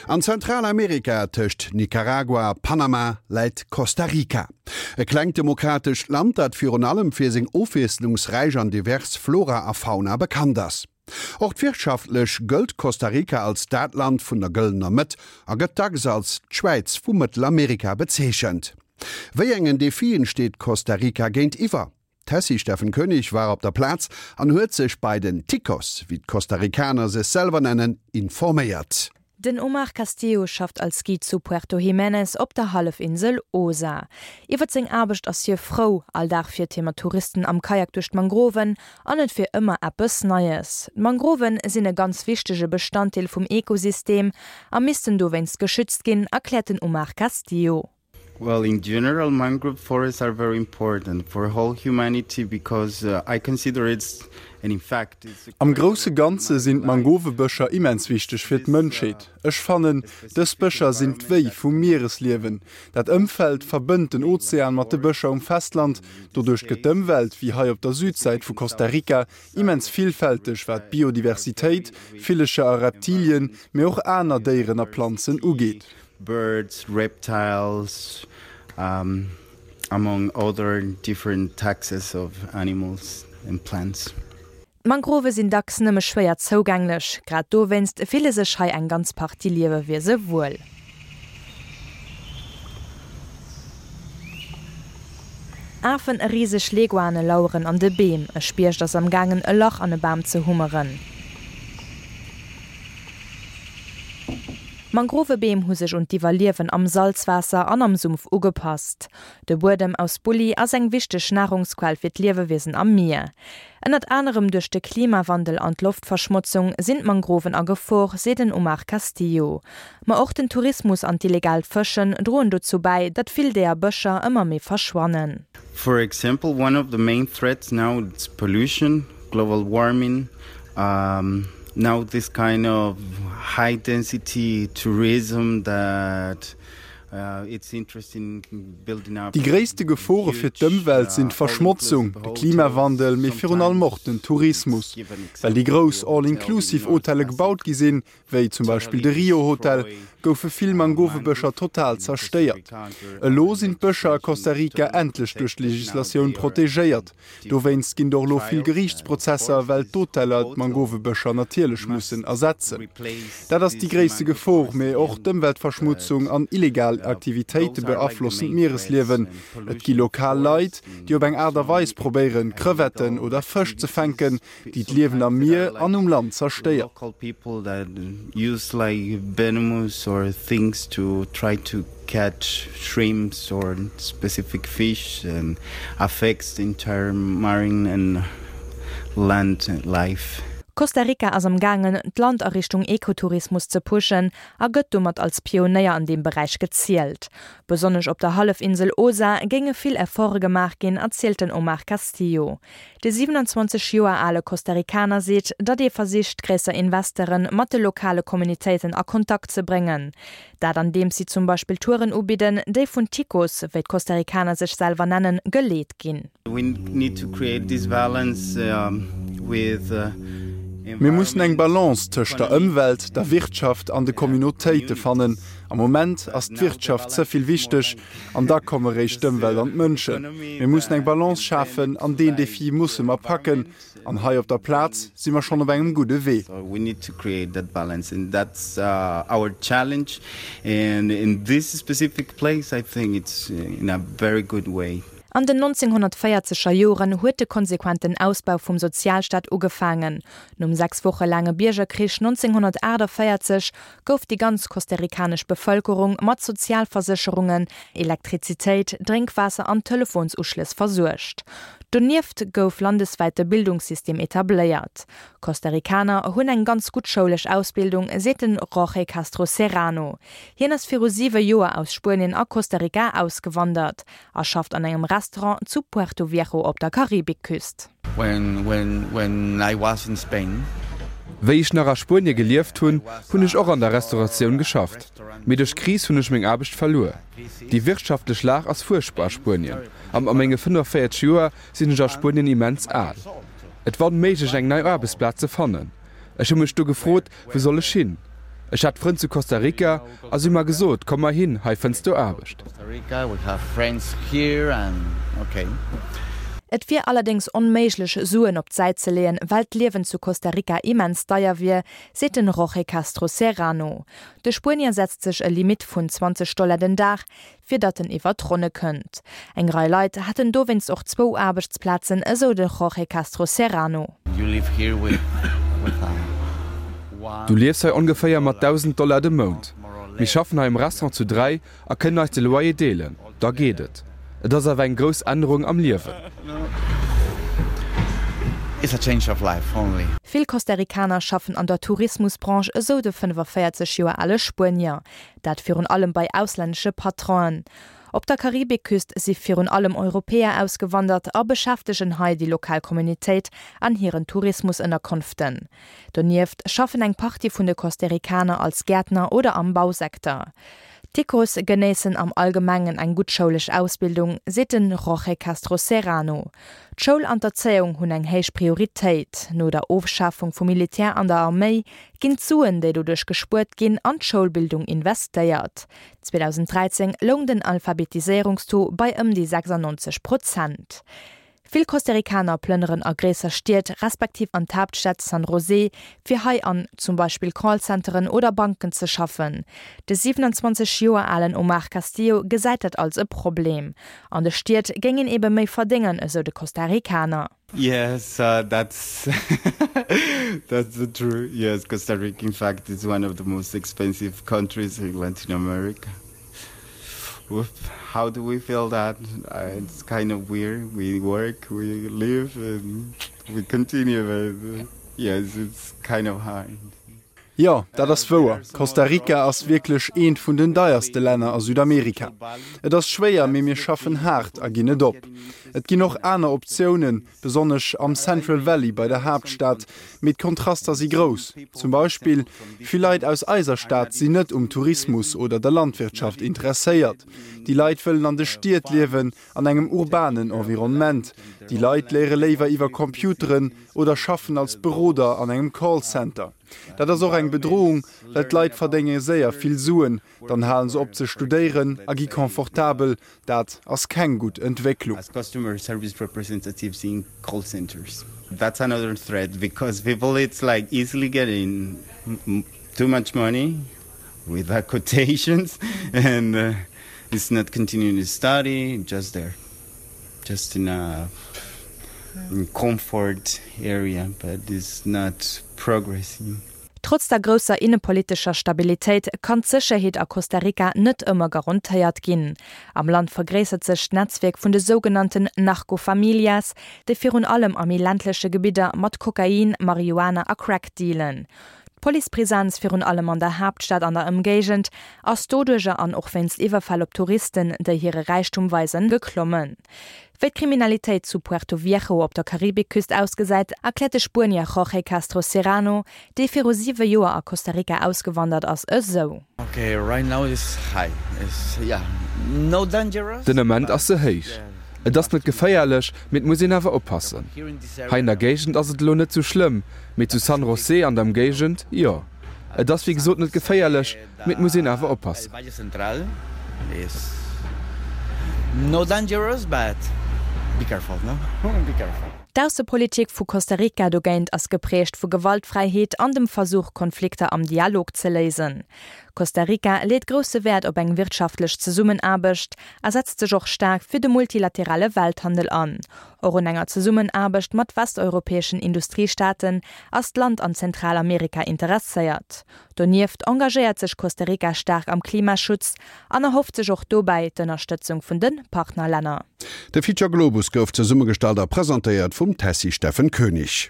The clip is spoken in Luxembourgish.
An Zentralamerika, tëscht Nicaragua a Panama, läit Costa Rica. E klengt demokratescht Land, dat virun allem fir seng ofwiesslungsräich an divers Flora a Fauna bekannt ass. Och wirtschaftlech gëllt Costa Rica als dat Land vun der gëllener Mëtt a gëtt dacks als d'Schwäiz vu Mëttelamerika bezeechent. Wéi engen Defien steet Costa Rica géintiwwer? D'Tessy Steffen Koenig war op der Plaz an huet sech bei den Ticos, wéi d'Costa-Ricaner sech selwer nennen, informéiert. Den Omar Castillo schafft als Guide zu Puerto Jiménez op der Hallefinsel Osa. Iwwert seng Aarbecht ass hie frou, all Dag fiert hie mat Touristen am Kajak duerch d'Mangroven an et wier ëmmer eppes Neies. D'Mangroven sinn e ganz wichtege Bestanddeel vum Ekosystem a missten dowéinst geschützt ginn, erkläert den Omar Castillo. Well in general mangrove forests are very important for whole humanity because uh, I consider it's and in fact it's Am grousse Ganze sinn d'Mangovebëscher immens wichteg fir d'Mënschheet. Ech fannen, dës Bëscher sinn d'Wéi vum Mieresliewen. Dat Ëmfeld verbënnt den Ozean mat de Bëscher um Festland. Doduerch gëtt d'Ëmwelt, wéi hei op der Südsäit vu Costa Rica, immens villfälteg wat d'Biodiversitéit, Villecher a Reptilien, mee och aner Déieren a Planzen ugeet. Birds, reptiles, among other different taxes of animals and plants. D'Mangrove sinn dacks nëmme schwéier zougänglech. Grad dowéinst fille sech hei eng ganz Partie Liewewiese wuel. Afen a riseg Leguane laueren an de Beem. E Spiecht ass am gaangen e Lach an e Bam ze hummeren. Mangrovebeem hu sech un d'Iwwerliewen am Salzwaasser an am Sumpf ugepasst. De Buedem aus Bulli ass eng wichteg Narungsquell fir d'Liewewiesen am Mier. Ënnert anerem duerch de Klimawandel an d'Loftverschmotzung sinn d'Mangroven a Gefor, seet den Omar Castillo. Ma och den Tourismus an d'illegaalt Fëschen droen dozou bäi, datt vill deeër Bëscher ëmmer méi verschwannen. For example, one of the main threats now is pollution. Global warming, now this kind of high density tourism that it's interesting building up. Déi gréisste Gefore fir d'Ëmwelt sinn d'Verschmotzung, de Klimawandel, mee virun allem och den Tourismus. Well déi grouss All-inclusive-Hotelle gebaut gi sinn, wéi zum Beispill de Rio Hotel, goufe vill Mangovebëscher total zerstéiert. Elo sinn d'Bëscher a Costa Rica endlech duerch d'Legislatioun protegéiert. Dowéinst ginn et och elo vill Geriichtsprozesser, well d'Hoteller d'Mangovebëscher natierlech mussen ersetzen. Dat ass déi gréisste Gefor, mee och d'Ëmweltverschmutzung an illegal Aktivitéite beaflossen d'Mieresliewen. Et gi lokal Leit, déi op eng Aart a Weis probéieren, Crevetten oder Fësch ze fänken, déi d'Liewen am Mier an um Land zerstéiert. Costa Rica ass am gaangen, d'Land a Richtung Ekotourismus ze pushen a gëtt domat als Pionéier an deem Beräich gezielt. Besonnesch op der Hallefinsel Osa géinge vill Efforte gemaach ginn, erzielt den Omar Castillo. De 27 Joer ale Costa-Ricaner seet, datt ee versicht, gréisser Investere mat de lokale Communitéiten a Kontakt ze bréngen. Dat andeems si zum Beispill Touren ubidden, déi vun Ticos, wéi d'Costa-Ricaner sech selwer nennen, geleet ginn. Mir mussen eng Balance tëscht der Ëmwelt, der Wirtschaft an de Communautéite fannen. Am Moment ass d'Wirtschaft ze vill wichteg. An da komme réischt d'Ëmwelt an d'Mënschen. Mir mussen eng Balance schafen an deen Defi musse mer packen. An hei op der Plaz si mer schonn op engem gudde Wee. An den 1940er Joren huet de konsequenten Ausbau vum Sozialstaat ugefaangen. Nom 6 Woche laange Biergerkrich 1948 gouf déi ganz costarikanesch Bevëlkerung mat Sozialversécherungen, Elektrizitéit, Drénkwaasser an Telefonsuschlëss versuergt. Donieft gouf landeswäit de Bildungssystem etabléiert. Costarikaner hunn eng ganz gutt schoulesch Ausbildung, seet den Jorge Castro Serrano. Hien ass viru siwe Joer aus Spuenien a Costa Rica ausgewandert a schafft an engem Restaurant zu Puerto Viejo op der Karibikküst. Wéi ech nach a Spuenie gelieft hunn, hunn ech och an der Restauratioun geschafft. Mee duerch d'Kris hunn ech meng Aarbecht verluer. Déi wirtschaftlech Lag ass fuerchtbar a Spuenien a mat menge 45 Joer sinn ech a Spuenien immens al. Et war onméiglech eng nei Aarbechtsplaz ze fannen. Ech hu mech du gefrot, wou soll ech hin? Ech hat Frënn zu Costa Rica a si hu mer gesot, komm mar hin, hei fënns du Aarbecht. Et wier allerdéngs onméiglech, Suen op d'Säit ze leeën, well d'Liewen zu Costa Rica immens deier wier, seet den Jorge Castro Serrano. De Spuenier setzt sech e Limitt vun 20 Dollar den Dag, fir datt en iwwer d'Ronne kënnt. Eng Rei Leit hätten dowéinst och zwou Aarbechtsplazen, esou de Jorge Castro Serrano. Du liefs hei ongeféier mat 1.000 Dollar de Mount. Mir schaffen hei am Restaurant zu 3 a kënnen eis de Loyer deelen, da geet et. Et ass awer eng grouss Ännerung am Liewen. Vill Costa-Ricaner schaffen an der Tourismusbranche, esou de 45 Joer ale Spuenier. Dat virun allem bei auslännesche Patronen. Op der Karibikküst si virun allem Europäer ausgewandert a beschäftegen hei déi lokal Communitéit an hiren Tourismusënnerkonften. Donieft schaffen eng Partie vun de Costaricaner als Gäertner oder am Bausecteur. D'Ticos genéissen am Allgemengen eng gutt schoulesch Ausbildung, seet de Jorge Castro Serrano. D'Schoul an d'Erzéiung hunn eng héich Prioritéit. No der Ofschafung vum Militär an der Arméi ginn d'Suen, déi doduerch gespuert ginn, an d'Schoulbildung investéiert. 2013 loung den Alphabetiséierungstaux bei ëm déi 96 Prozent. Vill Costaricaner plënneren a gréisser Stied, respektiv an d'Haaptstad San José, fir hei an zum Beispill Callcenteren oder Banken ze schaffen. De 27 Joer alen Omar Castillo gesäit dat als e Problem. An de Stied géing een ebe méi verdéngen, esou de Costaricaner. Yes, uh, that's that's the true. Yes, Costa Rica, in fact, is one of the most expensive countries in Latin America. Whoop, how do we feel that? Uh, it's kind of weird. We work, we live, and we continue. But uh, yes, it's kind of hard. Jo, dat ass wouer. Costa Rica ass wierklech eent vun den deierste Länner a Südamerika. Et ass schwéier, mee mir schaffen haart a ginn net op. Et ginn och aner Optiounen, besonnesch am Central Valley bei der Haaptstad, mee d'Kontraster si grouss. Zum Beispill, vill Leit aus eiser Stad sinn net um Tourismus oder der Landwirtschaft interesséiert. Déi Leit wëllen an de Stied liewen, an engem urbanen Environnement. Déi Leit léiere léiwer iwwer Computeren oder schaffen als Beroder an engem Callcenter. Dat ass och eng Bedrohung, well d'Leit verdénge séier vill Suen, dann hale se op ze studéieren a gi confortabel. Dat ass keng gutt Entwécklung. Just in a comfort area, but it's not progressing. Trotz der grousser innepolitescher Stabilitéit kann d'Sécherheet a Costa Rica net ëmmer garantéiert ginn. Am Land vergréissert sech d'Netzwierk vun de sougenannten Narcofamilias, déi virun allem a méi ländleche Gebidder mat Kokain, Marihuana a Crack dealen. D'Policepresenz, virun allem an der Haaptstad an der Ëmgéigend, ass doduercher an och wéinst Iwwerfäll op Touristen, déi hire Räichtum weisen, geklommen. Wéi d'Kriminalitéit zu Puerto Viejo op der Karibikküst ausgesäit, erkläert de Spuenier Jorge Castro Serrano, dee viru siwe Joer a Costa Rica ausgewandert ass, esou. Den Ament ass se héich. Et ass net geféierlech, mee et muss een awer oppassen. Hei an der Géigend ass et elo net sou schlëmm, Mee zu San José an der Emgéigend, jo. Et ass wéi gesot net geféierlech, mee et muss een awer oppassen. D'Aussepolitik vu Costa Rica dogéint ass geprägt vu Gewaltfräiheet an dem Versuch, Konflikter am Dialog ze léisen. Costa Rica leet grousse Wäert op eng wirtschaftlech Zesummenaarbecht a setzt sech och staark fir de multilaterale Welthandel an. Och un enger Zesummenaarbecht mat westeuropäeschen Industriestaaten ass d'Land an Zentralamerika interesséiert. Donieft engagéiert sech Costa Rica staark am Klimaschutz an erhofft sech och dobäi d'Ënnerstëtzung vun de Partnerlänner. De Feature Globus gouf zesummegestallt a presentéiert vum Tessy Steffen Koenig.